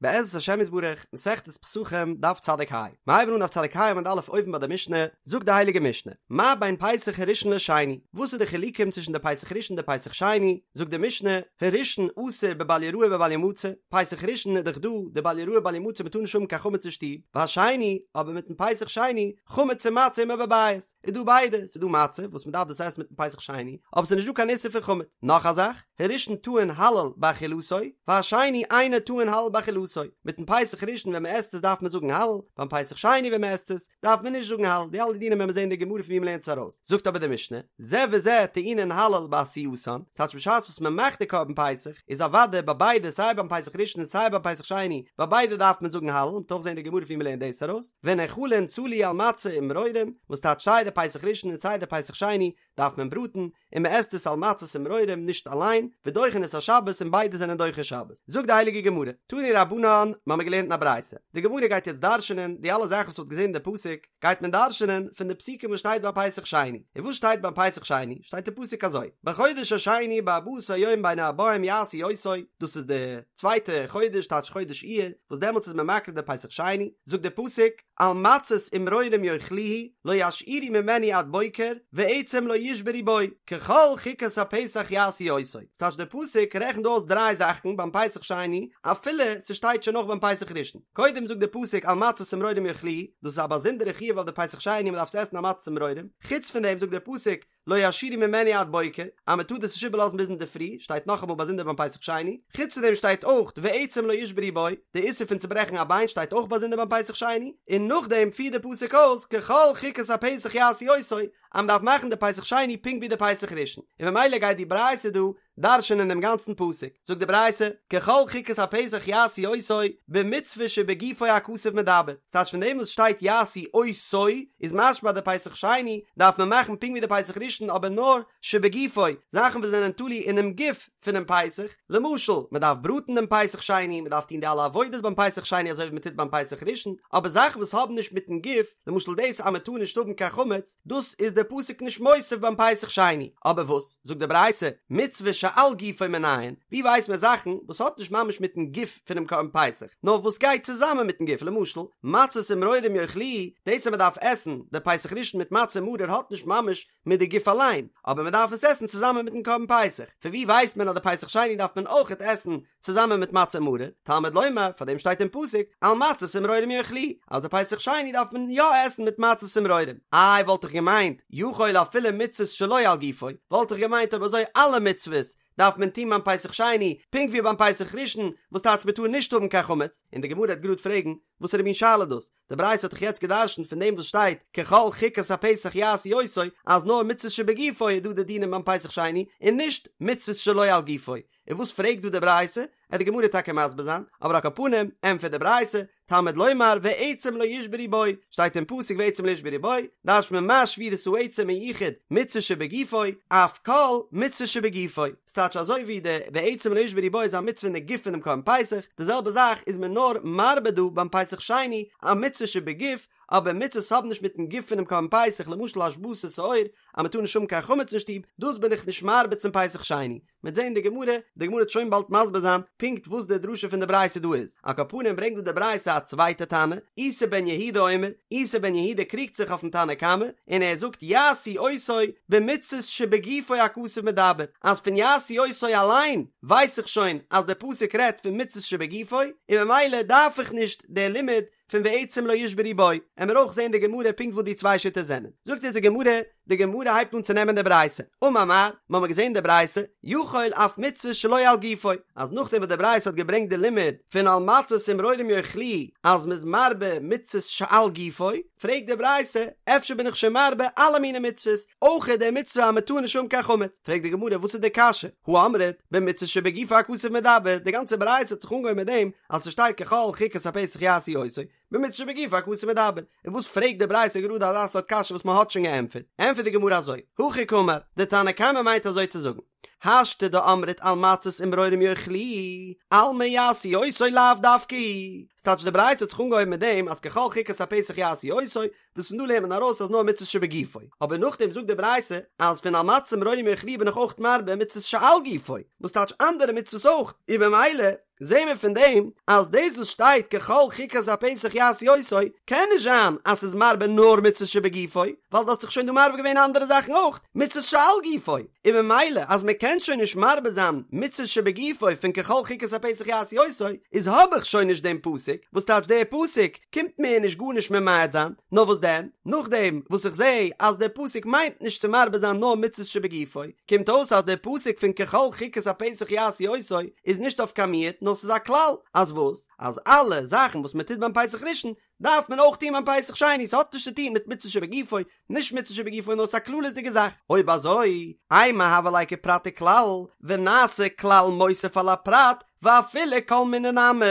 בעזרת השם יתברך, מסכת פסחים, דף צדיק ה. מיר הייבן אן דף צדיק ה עמוד א' אויבן ביי די משנה, זאגט די הייליגע משנה, מה בין פסח הראשון לשני, וואס איז די חילוקים צווישן די פסח ראשון און די פסח שני, זאגט די משנה, הראשון אסור בבל יראה ובל ימצא, פסח ראשון איז דאך דא די בל יראה בל ימצא מ'טאר נישט האבן קיין חמץ אין שטוב, והשני, אבער מיטן פסח שני, חמץ ומצה עמו בבית. איז דא ביידע, ס'איז דא מצה וואס מ'דארף דאס עסן מיטן פסח שני, אבער ס'איז נישט דא קיין איסור פון חמץ. נאך א זאך, הראשון טעון הלל באכילתו, והשני אינו טעון הלל באכילתו, מיטן פסח ראשון ווען מ'עסט עס דארף מען זאגן הלל, ביים פסח שני ווען מ'עסט עס, דארף מען נישט זאגן הלל, די אלע דינים וועלן מיר זען אין די גמרא פון ווי מ'לערנט עס ארויס. זאגט אבער די משנה, זה וזה טעונין הלל בעשייתן, ס'טייטש בשעת וואס מ'מאכט די קרבן פסח, איז אוודאי ביי ביידע סיי ביים פסח ראשון און סיי ביים פסח שני, ביי ביידע דארף מען זאגן הלל, מ'וועט אויך זען אין די גמרא פון ווי מ'לערנט דאס ארויס. ונאכלין צלי על מצה ומרורים, וואס טייטש סיי די פסח ראשון און סיי די פסח שני דארף מען בראטן, און מען עסט עס על מצות ומרורים נישט אליין, ודוחין את השבת און ביידע זענען דוחה שבת. זאגט די הייליגע גמרא, תנו רבנן, מ'האמיר געלערנט אין א ברייתא, די גמרא גייט יעצט דרש'נען די אלע זאכן וואס מ'האט געזען אין די פסוק, גייט מען דרש'נען פון די פסוקים וואס שטייט ביי פסח שני, און וואס שטייט ביים פסח שני? שטייט אין פסוק אזוי, בחודש השני בארבעה עשר יום בין הערבים יעשו אותו, דאס איז די צווייטע חודש טייטש חודש אייר, וואס דעמאלטס איז מען מקריב די פסח שני, זאגט דער פסוק, על מצות ומרורים יאכלוהו, לא ישאירו ממנו עד בוקר, ועצם לא ישברו בו, ככל חוקת הפסח יעשו אותו. ס'טייטש דער פסוק רעכנט דא אויס דריי זאכן ביים פסח שני, אפילו ס'שטייט שוין אויך ביים פסח ראשון. קודם זאגט דער פסוק על מצות ומרורים יאכלוהו, דאס איז א באזונדערע חיוב אויף די פסח שני מ'דארף עס עסן על מצות ומרורים. חוץ פון דעם זאגט דער פסוק, לא ישאירו ממנו עד בוקר, אז מען טאר דאס נישט איבערלאזן ביז אינדערפרי, שטייט נאכאמאל באזונדער ביים פסח שני, חוץ פון דעם שטייט אויך ועצם לא ישברו בו, די איסור פון צוברעכן א ביין שטייט אויך באזונדער ביים פסח שני, און נאכדעם פירט די פסוק אויס ככל חוקת הפסח יעשו אותו, אז מען דארף מאכן די פסח שני פונקט ווי די פסח ראשון, און ממילא גייט די ברייתא דא דרש'נען דעם גאנצן פסוק, זאגט די ברייתא, ככל חוקת הפסח יעשו אותו, במצוה שבגופו הכתוב מדבר, ס'טייטש פון דעם וואס שטייט יעשו אותו, איז משמע אז די פסח שני דארף מען מאכן פונקט ווי די פסח ראשון אבער נאר שבגופו, זאכן וואס זענען תלוי אינעם גוף פונעם פסח, למשל, מען דארף בראטן דעם פסח שני, מען דארף טון די אלע עבודות ביים פסח שני אזוי ווי מען טוט ביים פסח ראשון, אבער זאכן וואס האבן נישט מיטן גוף, למשל דאס אז מען טאר נישט האבן קיין חמץ, דאס איז דער פסוק נישט מוסיף ביים פסח שני, אבער וואס? זאגט די ברייתא, מצוה שעל גופו מנין, ווי ווייסט מען זאכן וואס האט נישט ממש מיטן גוף פונעם קרבן פסח, נאר וואס גייט צוזאמען מיטן גוף, למשל, מצות ומרורים יאכלוהו, דאס אז מען דארף עסן די פסח ראשון מיט מצה און מרור האט נישט ממש מיט די גוף אליין, אבער מען דארף עס עסן צוזאמען מיטן קרבן פסח, פון ווי ווייסט מען אז די פסח שני דארף מען אויכעט עסן צוזאמען מיט מצה ומרור, תלמוד לומר, פאר דעם שטייט אין פסוק, על מצות ומרורים יאכלוהו, אז די פסח שני דארף מען יא עסן מיט מצות ומרורים. איי וואלט איך געמיינט, יכול אפילו מצוות שלא על גופו, וואלט איך געמיינט אויב אזוי אלע מצוות דארף מען טון ביים פסח שני, פונקט ווי ביים פסח ראשון, וואס טייטש מען טאר נישט האבן קיין חמץ, און די גמרא וועט גראד פרעגן, וואסערע מין שאלה דאס? די ברייתא האט דאך יעצט גע'דרש'נט פון דעם וואס שטייט ככל חוקת הפסח יעשו אותו אז נאר מצוות שבגופו איז דא די דינים ביים פסח שני און נישט מצוות שלא על גופו, און וואס פרעגט דא די ברייתא? עט די גמרא טאקע מסביר זיין, אבער על כל פנים ענטפערט די ברייתא, תלמוד לומר ועצם לא ישברו בו, שטייט אין פסוק ועצם לא ישברו בו, דרש'נט מען מה שבירת העצם מיוחד מצוה שבגופו, אף כל מצוה שבגופו. ס'טייטש אזוי ווי די ועצם לא ישברו בו איז א מצוה אין די גוף פונעם קרבן פסח, די זעלבע זאך איז מען נאר מרבה דא ביים פסח שני א מצוה שבגוף, אבער מצוות האבן נישט מיטן גוף פונעם קרבן פסח, למשל השבתת שאור אז מ'טאר נישט האבן קיין חמץ אין שטוב, דאס בין איך נישט מרבה צום פסח שני. מ'עט זען אין די גמרא, די גמרא וועט שוין באלד מסביר זיין פונקט וואס די דרשה פון די ברייתא דא איז. על כל פנים ברענגט דא די ברייתא א צווייטע תנא, איסי בן יהודה אומר, איסי בן יהודה קריגט זיך אויפן תנא קמא, און ער זאגט יעשו אותו במצות שבגופו הכתוב מדבר, אז פון יעשו אותו אליין ווייס איך שוין אז דער פסוק רעדט פון מצות שבגופו, און ממילא דארף איך נישט דער לימוד פון ועצם לא ישברו בו, עמיר אויך זעהן די גמרא פונקט וואס די צוויי שיטות זענען. זאגט אונז די גמרא, די גמרא הייבט אן צו נעמען די ברייתא, אמר מר, מ'האמיר געזעהן די ברייתא, יכול אף מצוה שלא על גופו, אז נאכדעם וואס די ברייתא האט געברענגט די לימוד פון על מצות ומרורים יאכלוהו אז מ'איז מרבה מצוות שעל גופו, פרעגט די ברייתא, אפשר בין איך שוין מרבה אלע מיני מצוות, אויך די מצוה אז מ'טאר נישט האבן קיין חמץ? פרעגט די גמרא וואס איז די קשיא, הא אמרת, במצוה שבגופו הכתוב מדבר, די גאנצע ברייתא האט זיך אנגעהויבן מיט דעם אז ס'שטייט ככל חוקת הפסח יעשו אותו, במצוה שבגופו הכתוב מדבר, און וואס פרעגט די ברייתא גראדע אזא סארט קשיא וואס מ'האט שוין געענטפערט? ענטפערט די גמרא אזוי, הכי קאמר, די תנא קמא מיינט אזוי צו זאגן, השתא דאמרת על מצות ומרורים יאכלוהו, אלמא יעשו אותו לאו דווקא הוא, ס'טייטש די ברייתא האט זיך אנגעהויבן מיט דעם אז ככל חוקת הפסח יעשו אותו, וואס פון דא לערנט מען ארויס אז נאר מצות שבגופו, אבער נאכדעם זאגט די ברייתא אז פון על מצות ומרורים יאכלוהו בין איך אויך מרבה מצות שעל גופו, וואס טייטש אנדערע מצוות אויך, און במילא. זעהן מיר פון דעם אז דאס וואס שטייט ככל חוקת הפסח יעשו אותו קען נישט זיין אז ס'איז מרבה נאר מצות שבגופו, ווייל דא האט זיך שוין דא מרבה געווען אנדערע זאכן אויך, מצות שעל גופו, און ממילא אז מ'קען שוין נישט מרבה זיין מצות שבגופו פון ככל חוקת הפסח יעשו אותו, איז האב איך שוין נישט דעם פסוק, וואס טייטש דער פסוק קומט מיר נישט גארנישט ממעט זיין, נאר וואס דען, נאכדעם וואס איך זעה אז דער פסוק מיינט נישט צו מרבה זיין נאר מצות שבגופו, קומט אויס אז דער פסוק פון ככל חוקת הפסח יעשו אותו איז נישט אויף קיין מיעוט נאר ס'איז א כלל, אז וואס? אז אלע זאכן וואס מען טוט ביים פסח ראשון דארף מען אויך טון ביים פסח שני, ס'האט נישט צו טון מיט מצות שבגופו, נישט מצות שבגופו נאר ס'איז א כללית'דיגע זאך, אויב אזוי, אימא הוה ליה כפרט וכלל, ונעשה כלל מוסיף על הפרט, ואפילו כל מיני נמי,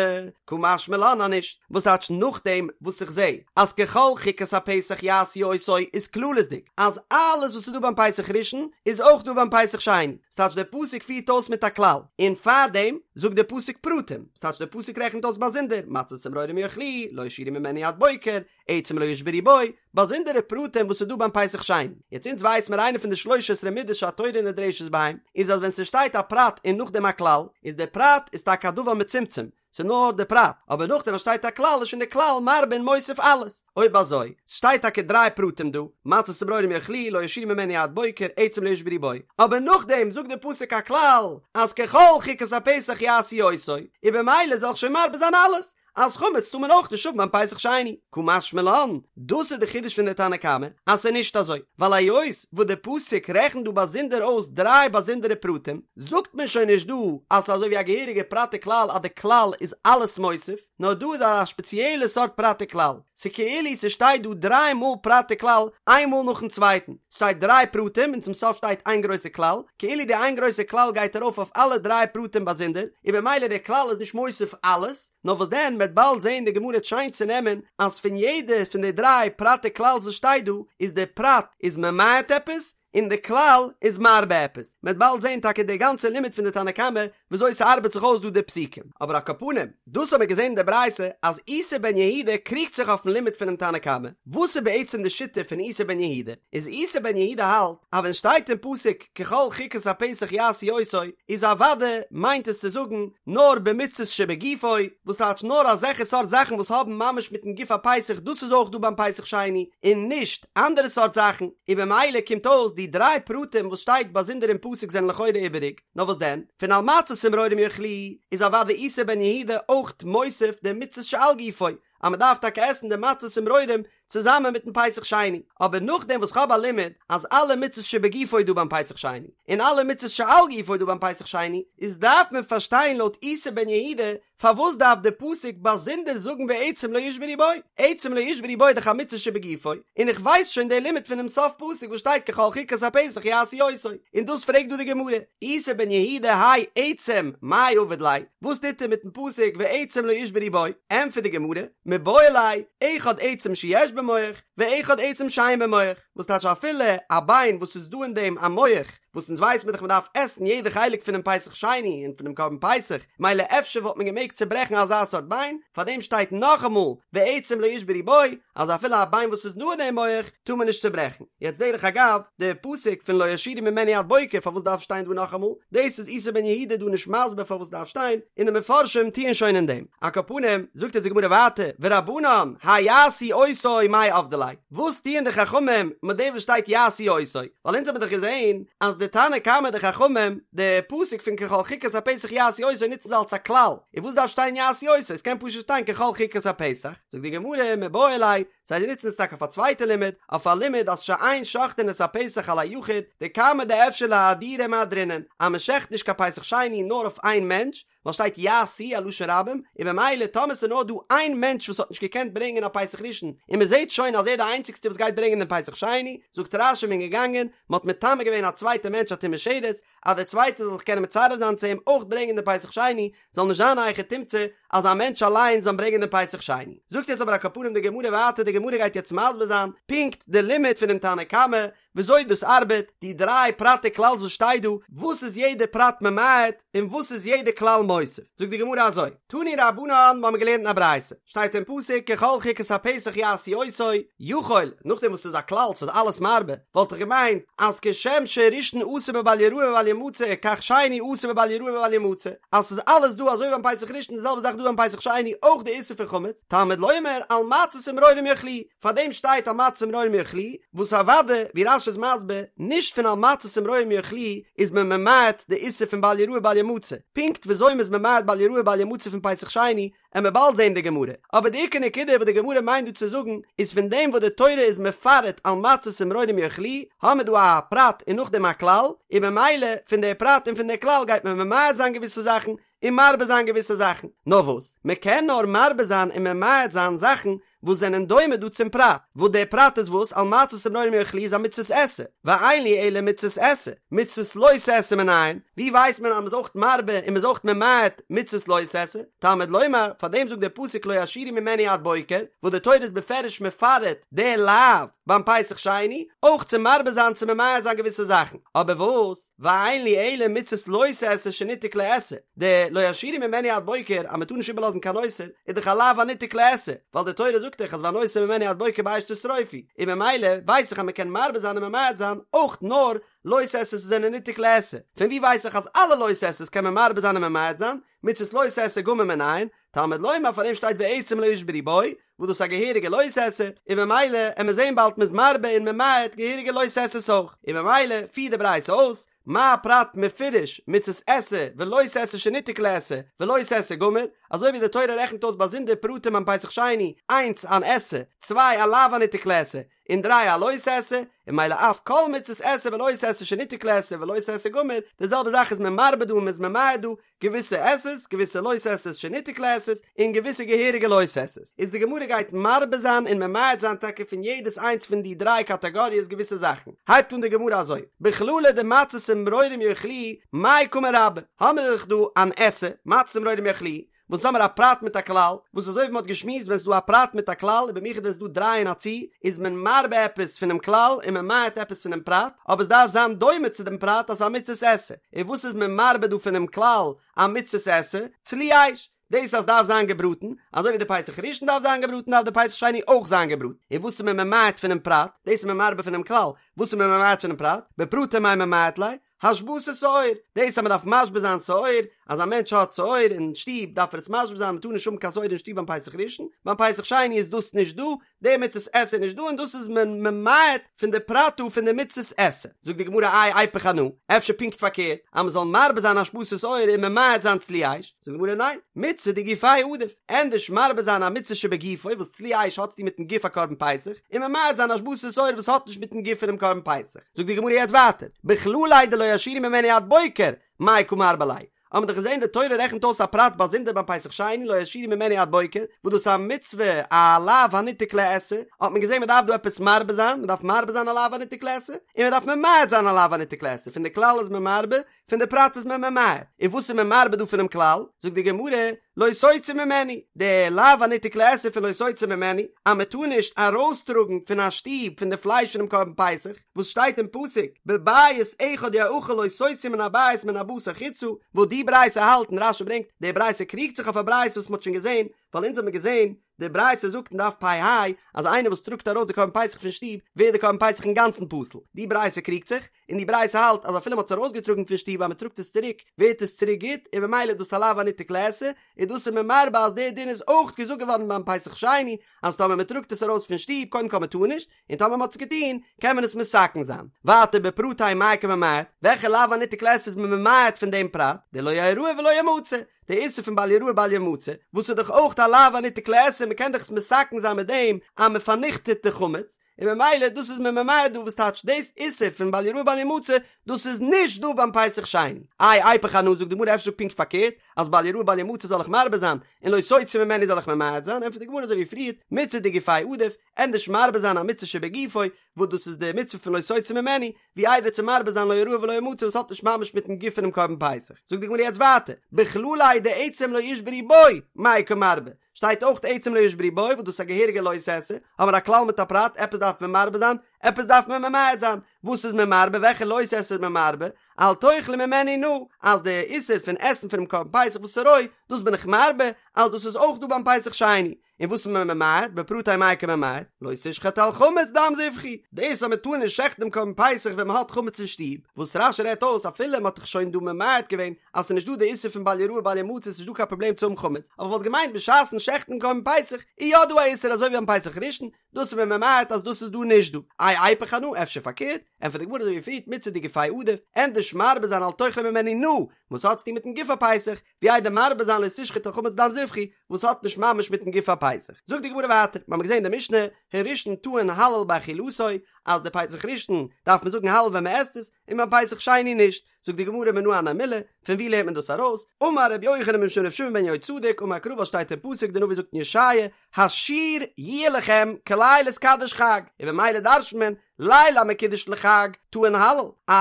קא משמע לן אז נישט, וואס טייטש נאכדעם וואס איך זע אז ככל חוקת הפסח יעשו אותו איז כללית'דיג אז אלעס וואס איז דא ביים פסח ראשון איז אויך דא ביים פסח שני, ס'טייטש דער פסוק פירט אויס מיט א כלל, און פארדעם זאגט דער פסוק פרטים, ס'טייטש דער פסוק רעכנט אויס באזונדער מצות ומרורים יאכלוהו, לא ישאירו ממנו עד בוקר, עצם לא ישברו בו, באזונדערע פרטים וואס איז דא ביים פסח שני. יעצט אונז ווייס מיר איינע פון די שלש עשרה מידות שהתורה נדרשת בהם, איז אז ווען ס'שטייט א פרט און נאכדעם א כלל, איז דער פרט איז טאקע א דבר מצומצם, ס'איז נאר די פרט, אבער נאכדעם וואס שטייט א כלל איז שוין די כלל מרבה און מוסיף אלעס. אויב אזוי, ס'שטייט טאקע דריי פרטים דא, מצות ומרורים יאכלוהו, לא ישאירו ממנו עד בוקר, עצם לא ישברו בו, אבער נאכדעם זאגט די פסוק א כלל, אז ככל חוקת הפסח יעשו אותו, און במילא זאל איך שוין מרבה זיין אלעס, אז חמץ טאר מען אויך נישט האבן ביים פסח שני. קא משמע לן, דאס איז די חידוש פון די תנא קמא, אז ס'איז נישט אזוי, ווייל היות וואס די פסוק רעכנט דא באזונדער אויס דריי באזונדערע פרטים, זאגט מען שוין נישט דא אז ס'איז אזוי ווי א געהעריגע פרט וכלל אז די כלל איז אלעס מוסיף, נאר דא איז א שפעציעלע סארט פרט וכלל, ס'כאילו ס'שטייט דא דריי מאל פרט וכלל איין מאל נאכן צווייטן, ס'שטייט דריי פרטים און צום סוף שטייט איין גרויסע כלל, כאילו די איין גרויסע כלל גייט ארויף אויף אלע דריי פרטים באזונדער, און במילא דער כלל איז נישט מוסיף אלעס, נאר וואס דען מ'עט באלד זעהן די גמרא וועט שיין צונעמען אז פון יעדע פון די דריי פרט וכלל'ס וואס שטייט דא איז די פרט איז ממעט עפעס און די כלל איז מרבה עפעס, מ'עט באלד זעהן טאקע די גאנצע לימוד פון די תנא קמא וויאזוי ס'ארבעט זיך אויס דא די פסוקים, אבער על כל פנים דאס האבן מיר געזעהן אין די ברייתא אז איסי בן יהודה קריגט זיך אויפן לימוד פונעם תנא קמא, וואס איז בעצם די שיטה פון איסי בן יהודה? איז איסי בן יהודה האלט אז ווען שטייט אין פסוק ככל חוקת הפסח יעשו אותו איז אוודאי מיינט עס צו זאגן נאר במצות שבגופו, וואס טייטש נאר אזעלכע סארט זאכן וואס האבן ממש מיטן גוף הפסח דאס איז אויך דא ביים פסח שני און נישט אנדערע סארט זאכן, און במילא קומט אויס די דריי פרטים וואס שטייט באזונדער אין פסוק זענען לכאורה איבעריג, נאר וואס דען, פון על מצות ומרורים יאכלוהו איז אוודאי איסי בן יהודה אויך מוסיף די מצות שעל גופו, אז מען דארף טאקע עסן די מצות ומרורים צוזאמען מיטן פסח שני, אבער נאכדעם וואס כ'האב א לימוד אז אלע מצות שבגופו איז דא ביים פסח שני, און אלע מצות שעל גופו איז דא ביים פסח שני, איז דארף מען פארשטיין לויט איסי בן יהודה פארוואס דארף די פסוק באזונדער זאגן ועצם לא ישברו בו, עצם לא ישברו בו איז דאך א מצוה שבגופו, און איך ווייס שוין די לימוד פונעם סוף פסוק וואס שטייט ככל חוקת הפסח יעשו אותו, און דאס פרעגט דא די גמרא, איסי בן יהודה האי עצם מאי עביד ליה, וואס טוט ער מיטן פסוק ועצם לא ישברו בו, ענטפערט די גמרא, מיבעי ליה, אחד עצם שיש בו מח, ואחד עצם שאין בו מח, וואס טייטש אפילו א ביין וואס איז דא אין דעם א מח, וואס אונז ווייס מיר דאך מען דארף עסן יעדע חלק פונעם פסח שני און פונעם קרבן פסח, מילא אפשר וואלט מען געמעגט צוברעכן אזא סארט ביין, פארדעם שטייט נאכאמאל ועצם לא ישברו בו, אז אפילו א ביין וואס איז דא אין דעם מח טאר מען נישט צוברעכן. יעצט דרך אגב, די פסוק פון לא ישאירו ממנו עד בוקר פארוואס דארף שטיין דא נאכאמאל, דאס איז איסי בן יהודה דא נישט מסביר פארוואס דארף שטיין, און די מפרשים טוען שוין אין דעם. על כל פנים, זאגט יעצט די גמרא ווייטער, ורבנן, האי יעשו אותו מאי עבדי ליה, וואס טוען די חכמים מיט דעם וואס שטייט יעשו אותו? ווייל אונז האבן דאך געזען אז די תנא קמא די חכמים, די פסוק פון ככל חוקת הפסח יעשו אותו נוצן זיי אלס א כלל, און וואס דארף שטיין יעשו אותו? עס קען פשוט שטיין ככל חוקת הפסח. זאגט די גמרא, מיבעי ליה, זיי נוצן עס טאקע אויף א צווייטע לימוד, אויף א לימוד אז שאין שוחטין את הפסח על היחיד, דכמה דאפשר לאהדורי מהדרינן, אז מען שעכט נישט קיין פסח שני נאר אויף איין מענטש, ווייל שטייט יעשו א לשון רבים, און במילא טאמער ס'איז נאר דא איין מענטש וואס האט נישט געקענט ברענגען א פסח ראשון, און מ'זעט שוין אז ער איז די איינציגסטע וואס גייט ברענגען דעם פסח שני, זאגט רש"י מ'איז געגאנגען, מ'האט מטמא געווען א צווייטע מענטש א טומאת שרץ, אז דער צווייטער זאל זיך קענען מצרף זיין צו אים אויך ברענגען דעם פסח שני, זאל נישט זיין א היכי תמצא. אז א מענטש אליין זאל ברענגען דעם פסח שני. זאגט יעצט אבער על כל פנים די גמרא ווייטער, די גמרא גייט יעצט מסביר זיין פונקט די לימוד פונעם תנא קמא, וויאזוי דאס ארבעט, די דריי פרטי כלל וואס שטייט דא, וואס איז יעדע פרט ממעט און וואס איז יעדע כלל מוסיף. זאגט די גמרא אזוי, תנו רבנן, מיר האבן געלערנט אין א ברייתא, שטייט אין פסוק ככל חוקת הפסח יעשו אותו, יכול, נאכדעם וואס ס'איז א כלל ס'איז אלעס מרבה, וואלט איך געמיינט אז כשם שראשון אסור בבל יראה ובל ימצא כך שני אסור בבל יראה ובל ימצא, אז ס'איז אלעס דא אזוי ביים פסח ראשון די זעלבע זאך דא ביים פסח שני אויך די איסור פון חמץ, תלמוד לומר על מצות ומרורים יאכלוהו, פאר דעם שטייט על מצות ומרורים יאכלוהו, וואס אוודאי, ווי רש"י איז מסביר, נישט פון על מצות ומרורים יאכלוהו איז מען ממעט די איסור פון בל יראה בל ימצא, פונקט וויאזוי מ'איז ממעט בל יראה בל ימצא פון פסח שני, עמיר באלד זעהן די גמרא, אבער די עיקר נקודה וואס די גמרא מיינט דא צו זאגן איז פון דעם וואס די תורה איז מפרט על מצות ומרורים יאכלוהו, האמיר דא א פרט און נאכדעם א כלל, און ממילא פון די פרט און פון די כלל גייט מען ממעט זיין געוויסע זאכן און מרבה זיין געוויסע זאכן, נאר וואס, מען קען נאר מרבה זיין און ממעט זיין זאכן וואס זענען דומה דא צום פרט, וואס דער פרט איז וואס על מצות ומרורים יאכלוהו איז א מצות עשה, ואין לי אלא מצות עשה, מצות לא תעשה מנין, ווי ווייסט מען אז מ'איז אויך מרבה און מ'איז אויך ממעט מצות לא תעשה, תלמוד לומר, פאר דעם זאגט דער פסוק לא ישאירו ממנו עד בוקר, וואס די תורה איז בפירוש מפרט די לאו ביים פסח שני, אויך צו מרבה זיין צו ממעט זיין געוויסע זאכן, אבער וואס? ואין לי אלא מצות לא תעשה שניתק לעשה, די לא ישאירו ממנו עד בוקר אז מען טאר נישט איבערלאזן קיין נותר איז דאך א לאו הניתק לעשה, ווייל די תורה זאגט דאך אז והנותר ממנו עד בוקר באש תשרופו, און ממילא ווייס איך אז מען קען מרבה זיין און ממעט זיין אויך נאר לא תעשה'ס וואס זענען ניתק לעשה, פון ווי ווייס איך אז אלע לא תעשה'ס קען מען מרבה זיין און ממעט זיין, מצות לא תעשה גמור מנין, תלמוד לומר פאר דעם שטייט ועצם לא ישברו בו, וואס דאס איז א געהעריגע לא תעשה, און ממילא עמיר זעהן באלד מ'איז מרבה און ממעט געהעריגע לא תעשה'ס אויך, און ממילא פירט די ברייתא אויס, מה פרט מפורש מצות עשה ולא תעשה שניתק לעשה ולא תעשה גמור, אזוי ווי די תורה רעכנט אויס באזונדער פרטים ביים פסח שני, איינס אן עשה, צוויי א לאו הניתק לעשה, און דריי א לא תעשה, און ממילא אף כל מצות עשה ולא תעשה שניתק לעשה ולא תעשה גמור, די זעלבע זאך איז מען מרבה דא און מ'איז ממעט דא, געוויסע עשה'ס, געוויסע לא תעשה'ס שניתק לעשה'ס, און געוויסע געהעריגע לא תעשה'ס. איז די גמרא גייט מרבה זיין און ממעט זיין טאקע פון יעדעס איינס פון די דריי קאטאגאריעס געוויסע זאכן. הייבט אן די גמרא אזוי, בכללא דמצות ומרורים יאכלוהו, מאי קא מרבה? האמיר דאך דא אן עשה, מצות ומרורים יאכלוהו, וואס האמיר א פרט מיט א כלל, וואס אזוי ווי מ'האט געשמועסט ווען ס'איז דא א פרט מיט א כלל און במיוחד ווען ס'איז דא דריי אין א צי, איז מען מרבה עפעס פונעם כלל און ממעט עפעס פונעם פרט, אבער ס'דארף זיין דומה צו דעם פרט אז ס'איז א מצות עשה. און וואס איז מען מרבה דא פונעם כלל א מצות עשה? צלי אש! דאס אז ס'דארף זיין געבראטן, אזוי ווי די פסח ראשון דארף זיין געבראטן דארף די פסח שני אויך זיין געבראטן. און וואס איז מען ממעט פונעם פרט? דאס איז מען מרבה פונעם כלל. וואס איז מען ממעט פונעם פרט? בפרטי מאי ממעט ליה? השבתת שאור, דאס אז מען דארף משבית זיין שאור, אז א מענטש האט שאור אין שטוב דארף ער עס משבית זיין, מען טאר נישט האבן קיין שאור אין שטוב ביים פסח ראשון, ביים פסח שני איז דאס נישט דא, די מצות עשה איז נישט דא און דאס איז מען ממעט פון די פרט דא פון די מצות עשה. זאגט די גמרא איי איפוך אנא, אפשר פונקט פארקערט, אז מען זאל מרבה זיין השבתת שאור און ממעט זיין צלי אש, זאגט די גמרא ניין, מצוה דגופיה עדיף, ענדערש מרבה זיין א מצוה שבגופו וואס צלי אש האט צוטון מיטן גוף הקרבן פסח, און ממעט זיין השבתת שאור וואס האט נישט מיטן גוף פונעם קרבן פסח. זאגט די גמרא יעצט ווייטער, בכלליה דלא ישאירו ממנו עד בוקר, מאי קא מרבה ליה? האבן מיר דאך געזען די תורה רעכנט אויס א פרט באזונדער ביים פסח שני לא ישאירו ממנו עד בוקר, וואס דאס איז א מצוה א לאו הניתק לעשה, האט מען געזען מען דארף דא עפעס מרבה זיין, מען דארף מרבה זיין א לאו הניתק לעשה, און מען דארף ממעט זיין א לאו הניתק לעשה, פון די כלל איז מען מרבה, פון די פרט איז מען ממעט, און וואס איז מען מרבה דא פונעם כלל? זאגט די גמרא, לא תוציא ממנו, די לאו הניתק לעשה פון לא תוציא ממנו, אז מען טאר נישט ארויסטראגן פון א שטוב פון די פלייש פונעם קרבן פסח, וואס שטייט אין פסוק, בבית אחד יאכל לא תוציא מן הבית מן הבשר חוצה, וואס די ברייתא האלט און רש"י ברענגט, די ברייתא קריגט זיך אויף א ברייתא וואס מען האט שוין געזען, ווייל אונז האבן מיר געזען, די ברייתא זאגט אין דף פ"ה אז איינער וואס טראגט ארויס די קרבן פסח פון שטוב ווערט די קרבן פסח אינגאנצן פסול, די ברייתא קריגט זיך, און די ברייתא האלט אז אפילו מען האט עס ארויסגעטראגן פון שטוב אז מען טראגט עס צוריק ווערט עס צוריק גוט און ממילא איז דאס א לאו הניתק לעשה, און דאס איז מען מרבה אז דער דין איז אויך געזאגט געווארן ביים פסח שני אז טאמער מען טראגט עס ארויס פון שטוב קודם כל מען טאר נישט, און טאמער מען האט עס געטון קען מען עס מתקן זיין. ווייטער בפרטי מאי קא ממעט, וועלכע לאו הניתק לעשה איז מען ממעט פון דעם פרט, דלא יראה ולא ימצא, די איסור פון בל יראה בל ימצא, וואס איז דאך אויך א לאו הניתק לעשה, מען קען דאך עס מתקן זיין מיט דעם אז מען פארניכטעט די חמץ, און ממילא דאס איז מען ממעט דא וואס טייטש דאס איסור פון בל יראה בל ימצא דאס איז נישט דא ביים פסח שני. איי איפוך אנא זאגט די גמרא אפשר זאג פונקט פארקערט אז בל יראה בל ימצא זאל איך מרבה זיין און לא תוציא ממנו זאל איך ממעט זיין ענטפערט די גמרא אזוי ווי פריערט מצוה דגופיה עדיף ענדערש מרבה זיין א מצוה שבגופו וואס דאס איז די מצוה פון לא תוציא ממנו ווי איידער צו מרבה זיין לא יראה ולא ימצא וואס האט נישט ממש מיטן גוף פונעם קרבן פסח. זאגט די גמרא יעצט ווייטער, בכלליה דעצם לא ישברו בו, מאי קא מרבה, שטייט אויך עצם לא ישברו בו וואס דאס איז א געהעריגע לא תעשה, האבן מיר א כלל מיט א פרט, עפעס דארף מען מרבה זיין, עפעס דארף מען ממעט זיין, וואס איז מען מרבה, וועלכע לא תעשה איז מען מרבה, אל תאכלו ממנו נא, אז די איסור פון עסן פונעם קרבן פסח וואס איז רוי, דאס בין איך מרבה, אז דאס איז אויך דא ביים פסח שני. און וואס איז מען ממעט? בפרטיה מאי קא ממעט? לא תשחט על חמץ דם זבחי! דאס אז מען טאר נישט שעכטן דעם קרבן פסח ווען מען האט חמץ אין שטוב, וואס רש"י רעדט אויס אפילו מען האט דאך שוין דא ממעט געווען אז ס'איז נישט דא די איסור פון בל יראה בל ימצא ס'איז נישט דא קיין פראבלעם צו האבן חמץ, אבער כ'וואלט געמיינט בשעת'ן שעכטן דעם קרבן פסח איז יא דא א איסור אזוי ווי ביים פסח ראשון, דאס איז מען ממעט אז דאס איז דא נישט דא. איי איפוך אנא? אפשר פארקערט? ענטפערט די גמרא אזוי ווי פריערט מצוה דגופיה עדיף, ענדערש מרבה זיין אל תאכלו ממנו נא, וואס האט צוטון מיטן גוף הפסח, ווי איידער מרבה זיין לא תשחט על חמץ דם זבחי, וואס האט נישט ממש מיטן גוף הפסח. זאגט די גמרא ווייטער, מיר האבן געזען אין די משנה, הראשון טעון הלל באכילתו, אז די פסח ראשון דארף מען זאגן הלל ווען מען עסט עס, און ביים פסח שני נישט. זאגט די גמרא מנא הני מילי, פון ווי לערנט מען דאס ארויס? אמר רבי יוחנן משום רבי שמעון בן יהוצדק, אמר קרא וואס שטייט אין פסוק, די נביא זאגט אין ישעיה, השיר יהיה לכם כליל התקדש חג, און במילא דרש'נט מען, ליל המקודש לחג טעון הלל, א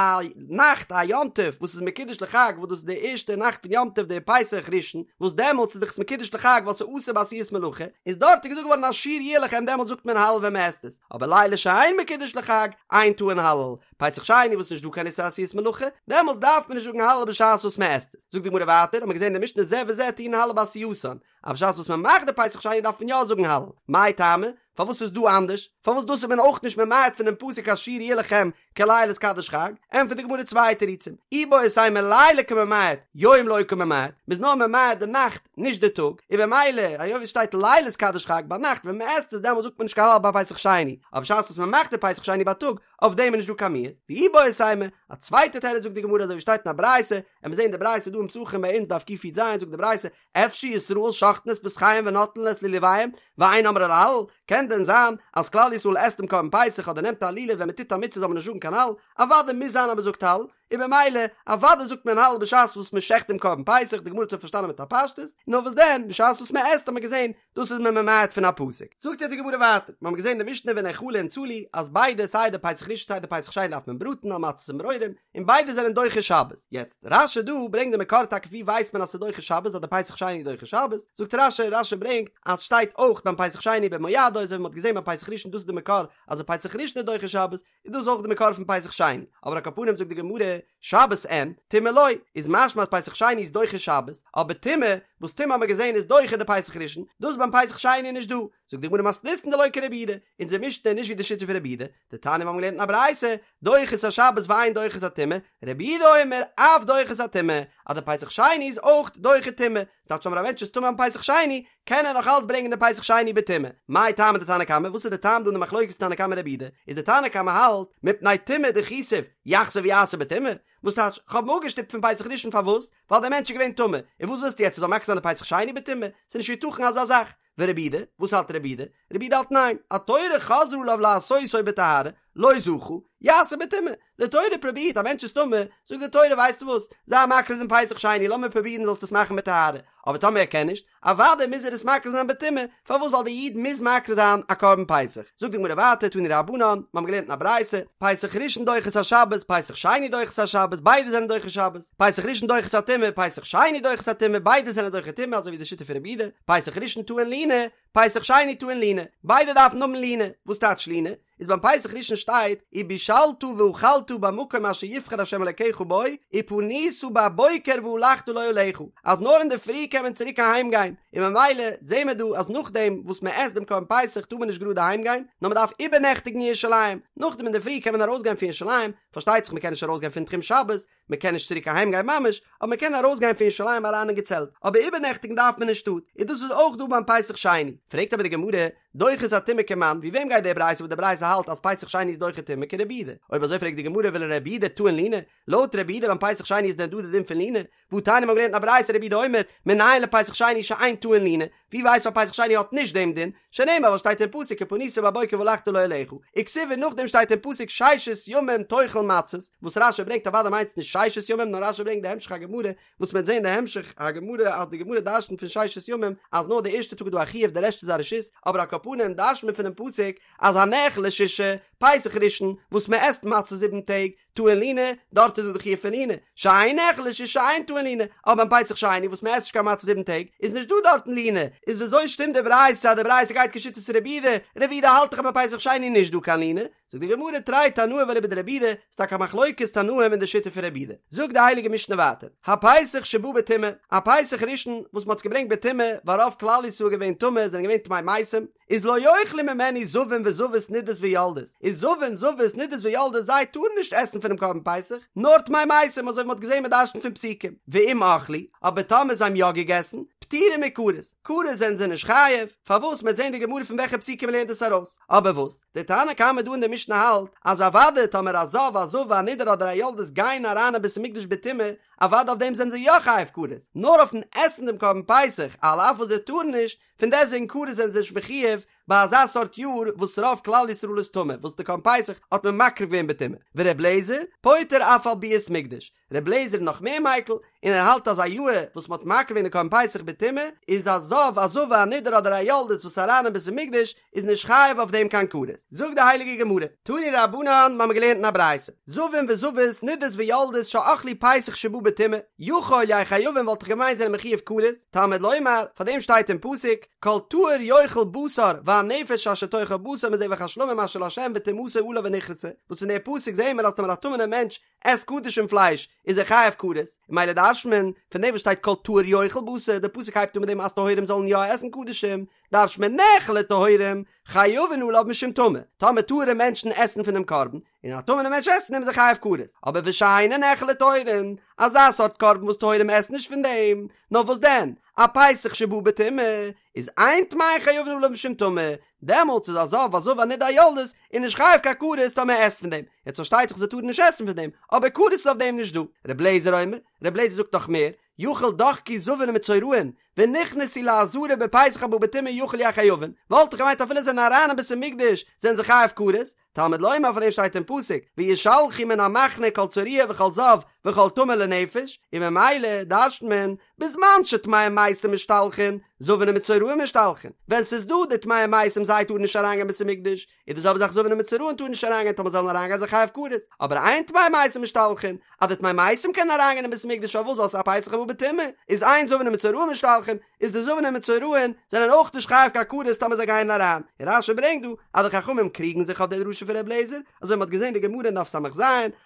נאכט א יום טוב וואס איז מקודש לחג וואס דאס איז די ערשטע נאכט פון יום טוב די פסח ראשון וואס דעמאלטס איז דאך עס מקודש לחג ווייל ס'איז אסור בעשיית מלאכה איז דארט איז געזאגט געווארן השיר יהיה לכם דעמאלטס זאגט מען הלל ווען מ'עסט עס אבער לילה שאין מקודש לחג אין טעון הלל פסח שני וואס נישט דא קיין איסור עשיית מלאכה דעמאלטס דארף מען נישט זאגן הלל בשעת וואס מ'עסט עס זאגט די גמרא ווייטער האט מען געזען אין די משנה זה וזה טעונין הלל בעשייתן אז בשעת וואס מען מאכט די פסח שני דארף מען יא זאגן הלל, מאי טעמא? פארוואס איז דא אנדערש? פארוואס דאס איז מען אויך נישט ממעט פונעם פסוק השיר יהיה לכם כליל התקדש חג? ענטפערט די גמרא צוויי תירוצים, איבעית אימא לילה קא ממעט, יום לא קא ממעט, מ'איז נאר ממעט די נאכט נישט די טאג, און במילא היות ווי ס'שטייט ליל התקדש חג ביינאכט ווען מ'עסט עס דעמאלט זאגט מען נישט קיין הלל ביי פסח שני, אבער בשעת וואס מ'מאכט די פסח שני בייטאג אויף דעם איז נישט דא קיין מיעוט, ואיבעית אימא, א צווייטע תירוץ זאגט די גמרא אזוי ווי שטייט אין א ברייתא, און מיר זעהן די ברייתא דא אין פסחים ביי אונז דף קי"ז זאגט די ברייתא, אפשר ישראל שוחטין את פסחיהם ונוטלין את לולביהם ואין אומרים הלל, קען דען זיין אז כלל ישראל עסט דעם קרבן פסח אדער נעמט א לולב ווען מען טוט א מצוה זאל מען נישט זאגן קיין הלל, אוודאי מוז זיין אז מען זאגט הלל, און במילא אוודאי זאגט מען הלל בשעת וואס מען שעכט דעם קרבן פסח, די גמרא האט שוין פארשטאנען מיט א פשטות, נאר וואס דען בשעת וואס מען עסט האט מען געזען דאס איז מען ממעט פון א פסוק. זאגט יעצט די גמרא ווייטער, מיר האבן געזען די משנה ונאכלין צלי אז ביידע סיי די פסח ראשון סיי די פסח שני דארף מען בראטן על מצות ומרורים, און ביידע זענען דוחה שבת. יעצט, רש"י דא ברענגט די מקור טאקע ווי ווייסט מען אז ס'איז דוחה שבת אז די פסח שני איז דוחה שבת, זאגט רש"י, רש"י ברענגט אז שטייט אויך ביים פסח שני במועדו אזוי ווי מ'האט געזען ביים פסח ראשון דאס איז די מקור אז די פסח ראשון איז דוחה שבת, איז דאס אויך די מקור פון פסח שני, אבער על כל פנים זאגט די גמרא, שבת אין, טומאה לא, איז משמע אז פסח שני איז דוחה שבת, אבער טומאה, וואס טומאה האט מען געזען איז דוחה די פסח ראשון, דאס ביים פסח שני איז נישט דא, זאגט די גמרא מתניתין דלא כרבי יהודה, אונזער משנה איז נישט ווי די שיטה פון רבי יהודה, דתניא מיר האבן געלערנט אין א ברייתא, דוחה את השבת ואין דוחה את הטומאה, רבי יהודה אומר אף דוחה את הטומאה, אז די פסח שני איז אויך דוחה טומאה, ס'טייטש טאמער א מענטש איז טמא אום פסח שני, קען ער נאך אלץ ברענגען די פסח שני בטומאה. מאי טעמא דתנא קמא, וואס איז די טעם דא אין די מחלוקת תנא קמא רבי יהודה, איז די תנא קמא האלט, מפני טומאה דחיתיו, יחזור ויעשה בטומאה, וואס טייטש, כ'האב אים אפגעשטופט פון פסח ראשון פארוואס? ווייל דער מענטש איז געווען טמא, און וואס ווילסטו יעצט ער זאל מקריב זיין די פסח שני בטומאה? ס'איז נישט יתכן אזא זאך. ורבי יהודה, וואס האלט רבי יהודה? רבי יהודה האלט ניין, התורה חזרה עליו לעשותו בטהרה, לא זכה, יעשה בטומאה. די תורה פרובירט, א מענטש איז טמא, זאגט די תורה ווייסטו וואס, זיי מקריב דעם פסח שני, לאמיר פרובירן זאלסט עס מאכן בטהרה, אבער טאמער ער קען נישט, אוודאי מוז ער עס מקריב זיין בטומאה, פארוואס ווייל די איד מוז מקריב זיין א קרבן פסח. זאגט די גמרא ווייטער, תנו רבנן, מיר האבן געלערנט אין א ברייתא, פסח ראשון דוחה את השבת, פסח שני דוחה את השבת, ביידע זענען דוחה שבת, פסח ראשון דוחה את הטומאה, פסח שני דוחה את הטומאה, ביידע זענען דוחה טומאה אזוי ווי די שיטה פון רבי יהודה, פסח ראשון טעון לינה, פסח שני טעון לינה, ביידע דארפן האבן לינה, וואס טייטש לינה? איז ביים פסח ראשון שטייט ובשלת ואכלת במקום אשר יבחר ה' אלקיך בו ופנית בבוקר והלכת לאהליך אז נאר אינדערפרי קען מען צוריק אהיים גיין, און ממילא זעהן מיר דא אז נאכדעם וואס מען עסט דעם קרבן פסח טאר מען נישט גראד אהיים גיין, נאר מען דארף איבערנעכטיגן אין ירושלים, נאכדעם אינדערפרי קען מען ארויסגיין פון ירושלים, פארשטייט זיך מען קען נישט ארויסגיין פון תחום שבת, מען קען נישט צוריק אהיים גיין ממש, אבער מען קען ארויס גיין פון ירושלים אריין אין געצעלט, אבער איבערנעכטיגן דארף מען אין שטאט, און דאס איז אויך דא ביים פסח שני. פרעגט אבער די גמרא, דוחה את הטומאה כמאן, ווי וועם גייט די ברייתא וואס די ברייתא האלט אז פסח שני איז דוחה טומאה כרבי יהודה? אויב אזוי פרעגט די גמרא ולרבי יהודה טעון לינה, לויט רבי יהודה ביים פסח שני איז דען דא די דין פון לינה? והתניא מיר האבן געלערנט אין א ברייתא רבי יהודה אומר, מנין לפסח שני שאין טעון לינה? ווי ווייסט מען פסח שני האט נישט דעם דין? שנאמר וואס שטייט אין פסוק ופנית בבוקר והלכת לאהליך, וכתיב און נאכדעם שטייט אין פסוק ששת ימים תאכל מצות, וואס רש"י ברענגט אוודאי מיינט עס נישט ששת ימים נאר רש"י ברענגט די המשך הגמרא וואס מ'וועט זען די המשך הגמרא אז די גמרא דרשנ'ט פון ששת ימים אז נאר די ערשטע טאג איז דא א חיוב די רעשט איז א רשות, אבער על כל פנים דרש'נט מען פונעם פסוק אז הנאכל לשישה, פסח ראשון, וואס מ'עסט מצה זיבן טעג, טעון לינה, דארט איז דא די חיוב פון לינה, שאין נאכל לשישה אין טעון לינה, אבער ביים פסח שני וואס מ'עסט נישט קיין מצה זיבן טעג, איז נישט דא דארטן לינה, איז וויאזוי שטימט די ברייתא אז די ברייתא גייט כשיטת רבי יהודה, רבי יהודה האלט דאך אז ביי פסח שני איז נישט דא קיין לינה, זאגט די גמרא תרי תנאי ואליבא דרבי יהודה, ס'איז טאקע א מחלוקת תנאים אין די שיטה פון רבי יהודה. זאגט די הייליגע משנה ווייטער, הפסח שבא בטומאה, א פסח ראשון וואס מ'האט עס געברענגט בטומאה, ווייל רוב כלל ישראל געווען טמא, זענען געווען טמאי מתים, איז לא יאכלו ממנו זבים וזבות נידות ויולדות, איז זבין זבות נידות ויולדות זיי טארן נישט עסן פונעם קרבן פסח, נאר טמאי מתים אזוי ווי מ'האט געזען מ'דרש'נט פון פסוקים, ואם אכלו, אבער טאמער זיי האבן יא געגעסן, פטורין מכרת, כרת זענען זיי נישט חייב, פארוואס מ'עט זען די גמרא פון וועלכע פסוקים מ'לערנט דאס ארויס, אבער וואס? דער תנא קמא דא אין די משנה האלט אז אוודאי טאמער א זב א זבה א נידה אדער א יולדת גייען אריין אין בית המקדש בטומאה, אוודאי אויף דעם זענען זיי יא חייב כרת, נאר אויפן עסן דעם קרבן פסח על אף וואס זיי טארן נישט, פון דעסטוועגן כרת זענען זיי נישט מחויב ביי אזא סארט יאר וואס רוב כלל ישראל איז טמא וואס די קרבן פסח האט מען מקריב געווען בטומאה, ור' אליעזר פוטר אף על ביאת מקדש, ר' אליעזר איז נאך מער מיקל און ער האלט אז א יאהר וואס מען האט מקריב געווען די קרבן פסח בטומאה איז א זב א זבה א נידה אדער א יולדת וואס איז אריין אין בית המקדש איז נישט חייב אויף דעם קיין כרת. זאגט די הייליגע גמרא, תנו רבנן, מ'האמיר געלערנט אין א ברייתא, זבים וזבות נידות ויולדות שאכלו פסח שבא בטומאה, יכול יהיו חייבין וואלט איך געמיינט זענען מחויב כרת, תלמוד לומר, פאר דעם שטייט אין פסוק, כל טהור יאכל בשר והנפש אשר תאכל בשר מזבח השלמים אשר לה' וטומאתו עליו ונכרתה, וואס פון די פסוק זעהן מיר אז טאמער א טמא'נער מענטש עסט קדשים פלייש איז ער חייב כרת, און ממילא דרש'נט מען פון דעם וואס שטייט כל טהור יאכל בשר, די פסוק הייבט אן מיט דעם אז טהורים זאלן יא עסן קדשים, דרש'נט מען נאכלו טהורים, חייבין עליו משום טמא, טאמער טהור'ע מענטשן עסן פונעם קרבן, און א טמא'נער מענטש עסט פון דעם איז ער חייב כרת, אבער ושאינו נאכל לטהורין, אזא סארט קרבן וואס טהורים עסן נישט פון דעם, נאר וואס דען, א פסח שבא בטומאה, איז אין טמאין חייבין עליו משום טמא, דעמאלטס איז א זב א זבה א נידה א יולדת איז נישט חייב קיין כרת טאמער ער עסט פון דעם, יעצט פארשטייט זיך זיי טארן נישט עסן פון דעם, אבער כרת איז אויף דעם נישט דא. ר' אליעזר אומר, ר' אליעזר זאגט נאך מער, יכול דחקו זבין ומצורעין, ונכנסו לעזרה בפסח הבא בטומאה יכול יהו חייבין, וואלט איך געמיינט אפילו זיי זענען אריין אין בית המקדש זענען זיי חייב כרת, תלמוד לומר פאר דעם שטייט אין פסוק וישלחו מן המחנה כל צרוע וכל זב וכל טמא לנפש, און ממילא דרש'נט מען בזמן שטמאי מתים משתלחין, זבין ומצורעין משתלחין, ווען ס'איז דא די טמאי מתים זיי טארן נישט אריינגיין בית המקדש, איז די זעלבע זאך זבין ומצורעין טארן נישט אריינגיין טאמער זאלן אריינגיין זיי חייב כרת, אבער אין טמאי מתים משתלחין, אז די טמאי מתים קענען אריינגיין אין בית המקדש פארוואס ווייל ס'איז א פסח הבא בטומאה, איז אין זבין ומצורעין משתלחין, איז די זבין ומצורעין זענען אויך נישט חייב קיין כרת טאמער זיי גייען אריין, און רש"י ברענגט דא אז די חכמים קריגן זיך אויף די דרשה פון ר' אליעזר, אזוי מ'האט געזען די גמרא אין דף ס"ז,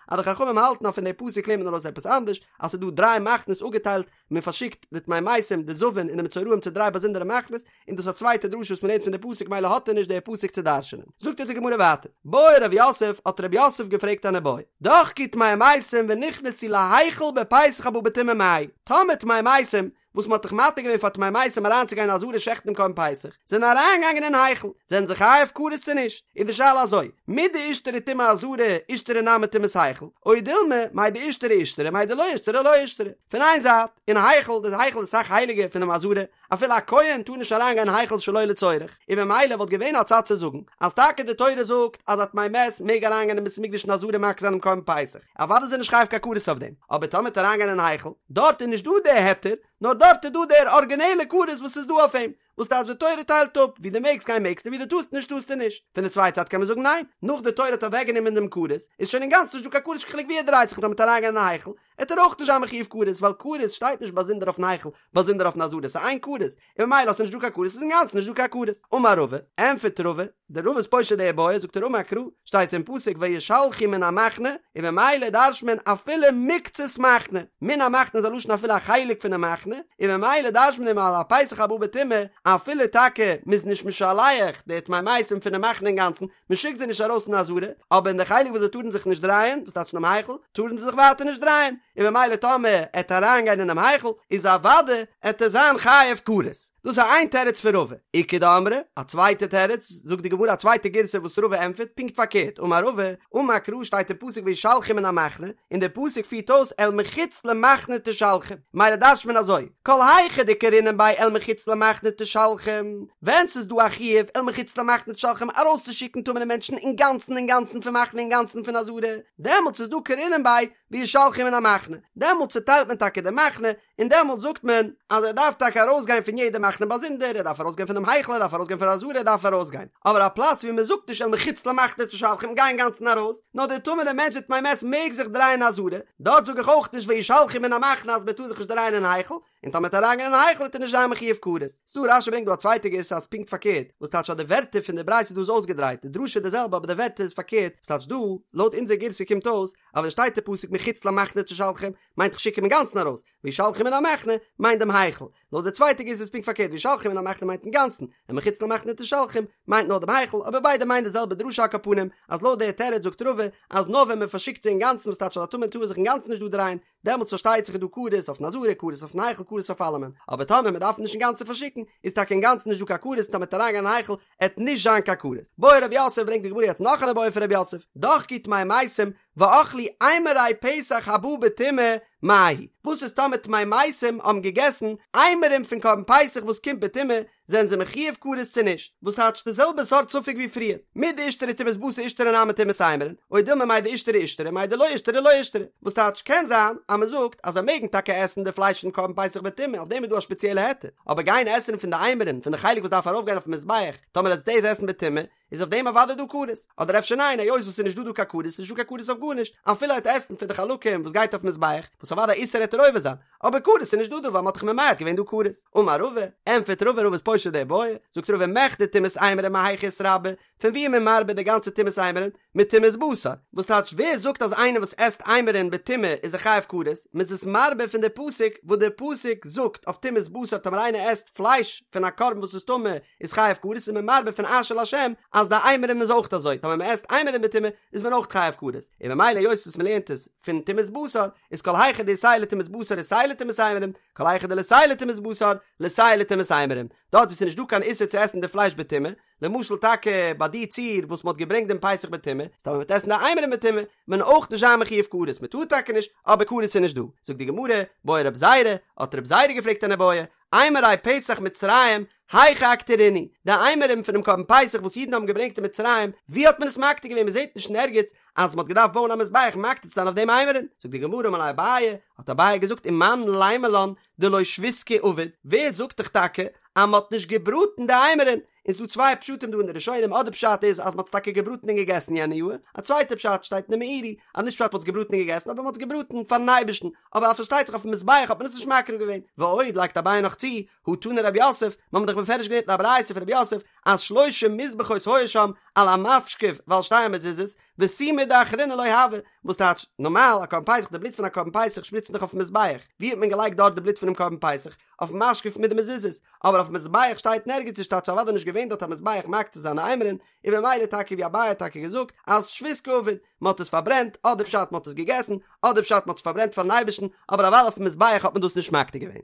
אז די חכמים האלטן אז פון די פסוק לערנט מען ארויס עפעס אנדערש, אז ס'איז דא דריי מחנות אפגעטיילט, מען פארשיקט די טמאי מתים, די זבין און די מצורעים צו דריי באזונדערע מחנות, און דאס איז א צווייטע דרשה וואס מען לערנט פון די פסוק מילא האט ער נישט די פסוק צו דרש'נען. זאגט אונז די גמרא ווייטער, בעי רב יוסף, האט רב יוסף געפרעגט אן איבעיא, דחקו טמאי מתים ונכנסו להיכל בפסח הבא בטומאה מהו, טאמער טמאי מתים, וואס מען האט דאך מתיר געווען פאר טמאי מתים אריינצוגיין אין עזרה שעכטן דעם קרבן פסח, זענען אריינגעגאנגען אין היכל, זענען זיי חייב כרת צו נישט? איז די שאלה אזוי, מדאישתרי טומאת עזרה אישתרי נמי טומאת היכל, או דילמא, מאי דאישתרי אישתרי מאי דלא אישתרי לא אישתרי. פון איין זייט, אין היכל, די היכל איז אסאך הייליגער פונעם עזרה, אפילו א כהן טאר נישט אריינגיין אין היכל שלא לצורך, און ממילא וואלט געווען א צד צו זאגן, אז טאקע די תורה זאגט אז א טמא מת מעג אריינגיין אין בית המקדש אין עזרה מקריב זיין דעם קרבן פסח, אוודאי איז ער נישט חייב קיין כרת אויף דעם, אבער טאמער וועט אריינגיין אין היכל, דארט איז נישט דא דער היתר, נאר דארט איז דא דער ארגינעלע כרת וואס איז דא אויף אים, וואס טייטש די תורה טיילט אפ, ווי דו מעגסט גיין מעגסטו ווי דו טארסט נישט טארסטו נישט. פון די צווייטע זייט קען מען זאגן ניין, נאך די תורה האט אוועקגענומען דעם כרת, איז שוין אינגאנצן נישט דא קיין כרת נישט קיין חילוק ווי ער דרייט זיך און טאמער וועט אריינגיין אין היכל, עט ער אויך נישט זיין מחויב כרת, ווייל כרת שטייט נישט באזונדער אויפן היכל, באזונדער אויפן עזרה, ס'איז איין כרת, און ממילא אז ס'נישט דא קיין כרת איז אינגאנצן נישט דא קיין כרת. אמר רבא, ענטפערט רבא, דער רבא איז פושט די איבעיא, זאגט ער אמר קרא, שטייט אין פסוק וישלחו מן המחנה, און ממילא דרש'נט מען אפילו מקצת מחנה, מן המחנה איז א לשון אפילו א חלק פונעם מחנה, און ממילא דרש'נט מען אז א פסח הבא בטומאה, אפילו טאקע מ'איז נישט משלח די טמאי מתים פונעם מחנה אינגאנצן, מ'שיקט זיי נישט ארויס אין עזרה, אבער אין די חלק וואס זיי טארן זיך נישט דרייען, דאס טייטש אינעם היכל, טארן זיי זיך ווייטער נישט דרייען, און ממילא טאמער עט אריינגיין אינעם היכל, איז אוודאי עט ער זיין חייב כרת. דאס איז איין תירוץ פון רבא. איכא דאמרי, א צווייטע תירוץ, זאגט די גמרא א צווייטע גירסא וואס רבא ענטפערט פונקט פארקערט, אמר רבא, אמר קרא שטייט אין פסוק וישלחו מן המחנה, און דער פסוק פירט אויס אל מחוץ למחנה תשלחום, מילא דרש'ט מען אזוי, כל היכא דקרינן ביה אל מחוץ למחנה תשלחום, ווען ס'איז דא א חיוב אל מחוץ למחנה תשלחום ארויסצושיקן טמא'נע מענטשן אינגאנצן אינגאנצן פון מחנה אינגאנצן פון עזרה, דעמאלטס איז דא קרינן ביה וישלחו מן המחנה, דעמאלטס צוטיילט מען טאקע די מחנה, און דעמאלטס זאגט מען אז ער דארף טאקע ארויסגיין פון יעדע מחנה באזונדער, ער דארף ארויסגיין פונעם היכל, ער דארף ארויסגיין פון עזרה, ער דארף ארויסגיין. אבער א פלאץ ווי מען זאגט נישט אל מחוץ למחנה תשלחום גיי אינגאנצן ארויס, נאר דער טמא'נער מענטש דער טמא מת מעג זיך דרייען אין עזרה, דארט זאג איך אויך נישט וישלחו מן המחנה אז מען טאר זיך נישט דרייען אין היכל, און טאמער וועט ער אריינגיין אין היכל וועט ער נישט זיין מחויב כרת. ס'דא רש"י ברענגט דא א צווייטע גירסא אז פונקט פארקערט, וואס טייטש אז די ווערטער פון די ברייתא דא איז אויסגעדרייט, די דרשה איז די זעלבע אבער די ווערטער איז פארקערט, וואס טייטש דא, לויט אונזער גירסא קומט אויס אז ווען שטייט די פסוק מחוץ למחנה תשלחום מיינט כ'שיק אים אינגאנצן ארויס, וישלחו מן המחנה מיינט דעם היכל. לויט די צווייטע גירסא איז פונקט פארקערט וישלחו מן המחנה מיינט אינגאנצן, און מחוץ למחנה תשלחום מיינט נאר דעם היכל, אבער ביידע מיינען די זעלבע דרשה על כל פנים, אז לויט די תירוץ זאגט רבא אז נאר ווען מען פארשיקט זיי אינגאנצן וואס טייטש אז א טמא טאר זיך אינגאנצן נישט דא דרייען, דעמאלטס פארשטייט זיך איז דא כרת אויפן עזרה כרת אויפן היכל כרת אויף אלעמען, אבער טאמער מען דארף נישט אינגאנצן פארשיקן איז טאקע אינגאנצן נישט דא קיין כרת און טאמער וועט אריינגיין אין היכל עט נישט זיין קיין כרת. בעי רב יוסף ברענגט די גמרא יעצט נאך אן איבעיא פון רב יוסף, דחקו טמאי מתים ואכלו אימורי פסח הבא בטומאה מהו, וואס איז טאמער טמאי מתים האבן געגעסן אימורים פון קרבן פסח וואס קומט בטומאה, זענען זיי מחויב כרת צו נישט? וואס טייטש די זעלבע סארט ספק ווי פריער, מדאישתרי טומאת בשר אישתרי נמי טומאת אימורין, או דילמא מאי דאישתרי אישתרי מאי דלא אישתרי לא אישתרי, וואס טייטש קען זיין אז מען זאגט אז זיי מעגן טאקע עסן די פלייש פון קרבן פסח בטומאה אויף דעם איז דא א שפעציעלע היתר, אבער גיין עסן פון די אימורין פון די חלק וואס דארף ארויפגיין אויפן מזבח טאמער עטס דאס עסן בטומאה איז אויף דעם אוודאי דא כרת, אדער אפשר ניין היות וואס ס'איז נישט דא דא קיין כרת איז נישט דא קיין כרת אויף גארנישט, אפילו ער וועט עסן פון די חלקים וואס גייט אויף מזבח, וואס אוודאי איסור עט ער עובר זיין, אבער כרת איז נישט דא דא ווייל מ'האט דאך ממעט געווען דא כרת. אמר רבא, ענטפערט רבא רבא איז פושט די בעיא, זאגט רבא מכדי טומאת אימורין מהיכא איתרבי, פון ווי איז מען מרבה די גאנצע טומאת אימורין? מטומאת בשר, וואס טייטש ווער זאגט אז איינער וואס עסט אימורין בטומאה איז ער חייב כרת, מ'איז עס מרבה פון די פסוק וואס די פסוק זאגט אויף טומאת בשר טאמער איינער עסט פלייש פון א קרבן וואס איז טמא איז חייב כרת איז מען מרבה פון אשר להשם אז די אימורים איז אויך אזוי טאמער מען עסט אימורים בטומאה איז מען אויך חייב כרת און ממילא היות וואס מען לערנט עס פון טומאת בשר איז כל היכא דאיתיה לטומאת בשר איתיה לטומאת אימורים כל היכא דליתיה לטומאת בשר ליתיה לטומאת אימורים דארט וואו ס'איז נישט דא קיין איסור צו עסן די פלייש בטומאה למשל טאקע ביי די ציור וואס מ'האט געברענגט דעם פסח בטומאה איז טאמער מ'וועט עסן די אימורים בטומאה מען אויך נישט זיין מחויב כרת מ'טאר טאקע נישט אבער כרת איז נישט דא זאגט די גמרא בעי רב זירא האט רב זירא געפרעגט אן איבעיא אימורי פסח מצרים, היכא אקטירינהו, די אימורים פונעם קרבן פסח וואס אידן האבן געברענגט אין מצרים, ווי האט מען עס מקטיר געווען? מען זעט נישט אין ערגעץ אז מען האט געדארפט בויען א מזבח מקטיר צו זיין אויף דעם אימורים. זאגט די גמרא אמר ליה אביי, האט אביי געזאגט ומאן לימא לן דלא שביסקא עביד, ווער זאגט דיך טאקע אז מען האט נישט געבראטן די אימורים? איז דא צוויי פשטים דא אין די ראשונים, אדער פשט איז אז מען האט עס טאקע געבראטן און געגעסן יענע יאר, א צווייטע פשט שטייט אין די מאירי אז נישט פשט מען האט עס געבראטן און געגעסן אבער מען האט עס געבראטן פארן אייבערשטן, אבער פארשטייט זיך אויפן מזבח האט מען עס נישט מקריב געווען, ועוד לייגט אביי נאך צו, הא תנא רב יוסף, מיר האבן דאך בפירוש געלערנט אין א ברייתא פון רב יוסף אז שלושה מזבחות היו שם על המשקוף ועל שתי המזוזות, ותו מידי אחרינא לא הוה, וואס טייטש, נארמאל א קרבן פסח די בלוט פון א קרבן פסח שפריצט מען דאך אויפן מזבח, ווי האט מען געלייגט דארט די בלוט פונעם קרבן פסח? אויפן משקוף מיט די מזוזות, אבער אויפן מזבח שטייט נערגעץ נישט טייטש אוודאי נישט געווען דארט א מזבח מקטיר זיין אימורין, און במילא טאקע ווי אביי האט טאקע געזאגט אז שביסקא עביד, מען האט עס פארברענט, אדער פשט מען האט עס געגעסן, אדער פשט מען האט עס פארברענט פארן אייבערשטן, אבער אוודאי אויפן מזבח האט מען דאס נישט מקטיר געווען.